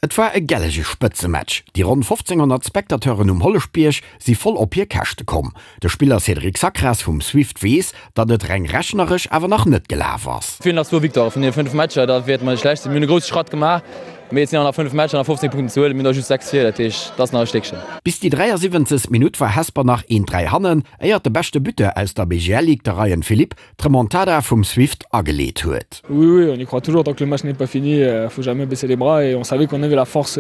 Et war e gellege Spëtzematch. Déi ronn 1.500 Spectateuren um Holleschbierg si voll op hir Käschte komm. De Spiller Cédric Sacras vum Swift weess, datt et reng rechneresch awer nach net gelaf ass. Et feelen nach zwou Victoiren vun deene 5 Matcher, da wäerte mer net schlecht sinn. Mir hunn e grousse Schratt gemaach, mee et sinn awer nach 5 Matcher, nach 15 Punkten ze huelen. Mir hunn der just 6 vir, dat heescht, et ass nach e Stéckchen. Bis déi 73. Minutt war Hesper nach een 3 hannen, éiert de beschte Buteur aus der BGL-Ligue, de Ryan Philippe, d'Remontada vum Swift ageleet huet. Oui, oui, on y croit toujours tant que le match n'est pas fini, faut jamais baisser les bras et on savait qu'on avait la force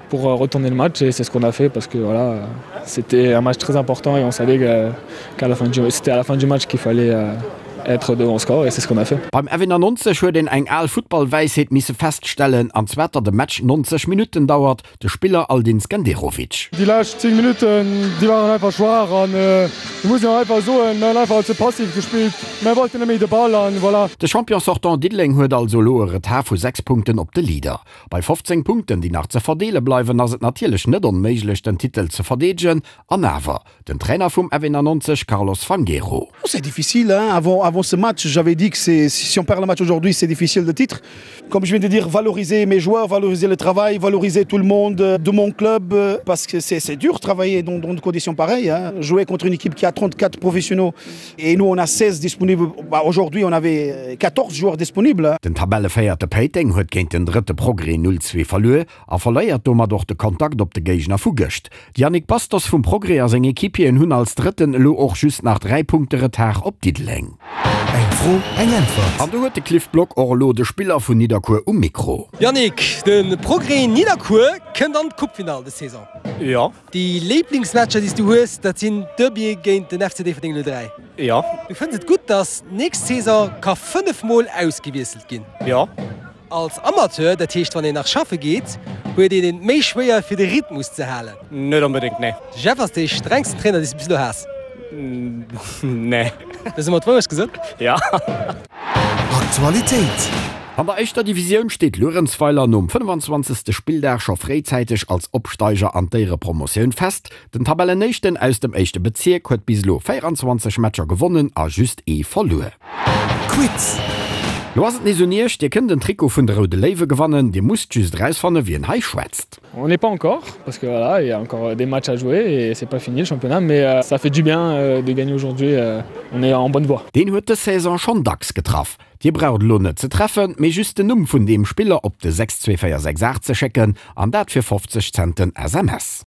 pour retourner le match et c'est ce qu'on a fait parce que voilà, c'était un match très important et on savait qu'à la fin du, c'était à la fin du match qu'il fallait être devant au score et c'est ce qu'on a fait. Beim F91 huet een eng al Futtballwäisheet misse feststellen, an zwar datt e Match 90 Minutten dauert, De Spiller Aldin Skenderovic. Déi lescht 10 Minutten, déi waren einfach schwaach an do muss een och einfach soen, mir hunn einfach ze passiv gespillt, mir wollten net méi de Ball an voilà. De Champion sortant Diddeleng huet also elo e Retard vu 6 Punkten op de Leader. Bei 15 Punkten, déi nach ze verdeele bleiwen, ass et natierlech net onméiglech den Titel ze verdeedegen. An awer, Den Trainer vum F91 Carlos Fangueiro. C'est difficile hein avant avant ce match j'avais dit que c'est si on perd le match aujourd'hui c'est difficile de titre comme je viens de dire valoriser mes joueurs valoriser le travail valoriser tout le monde de mon club parce que c'est c'est dur travailler dans dans des conditions pareilles hein jouer contre une équipe qui a 34 professionnels et nous on a 16 disponibles bah aujourd'hui on avait 14 joueurs disponibles. Den Tabellevéierte Péiteng huet géint den drëtte Progrès 0, 2 verluer a verléiert domat och de Kontakt op de Géigner vu gëscht. De Yannick Bastos vum Progrès a seng Equipieren hunn als Drëtten elo och just nach 3 Punkte Retard op Diddeleng. Eng Fro, eng Äntwert. An do huet de Cliff Block och elo de Spiller vun Nidderkuer um Mikro. Yannick, de Progrès Nidderkuer kënnt an d'Coupefinall des Saison. Jo. Déi Léiblingsmatcher déi s du hues, dat sinn d'Derbye géint den FC Déifferdeng 03. Jo. Du fënns et gutt, datt nächst Saison ka 5 mol ausgewiesselt ginn? Jo. Als Amateur, dat heescht wann een nach schaffe geet, huet een et méi schwéier fir de Rhythmus ze halen. Net onbedéngt, nee. De Jeff ass dee strengsten Trainer dee s du bis elo has. Nee. Hues de mer d'Wourecht gesot? Ja. Aktualitéit. An der éischter Divisioun steet Luerenzweiler nom 25. Spilldag scho fréizäiteg als Opsteiger an d'Éierepromotioun fest. Den Tabellenéischten aus dem éischte Bezierk huet bis elo 24 Matcher gewonnen a just ee verluer. Quiz. Lo ass et nees un iech, Dir kënnt en Trikot vun de Roude Léiwe gewannen. Dir musst just erausfanne wien hei schwätzt. On n'est pas encore parce que voilà, il y a encore des matchs à jouer et c'est pas fini le championnat mais ça fait du bien de gagner aujourd'hui, on est en bonne voie. Deen huet dës Saison schonn dacks getraff. Dir braucht elo net ze treffen, mee just den Numm vun deem Spiller op de 62468 ze schécken an dat fir 50 Cent den SMS.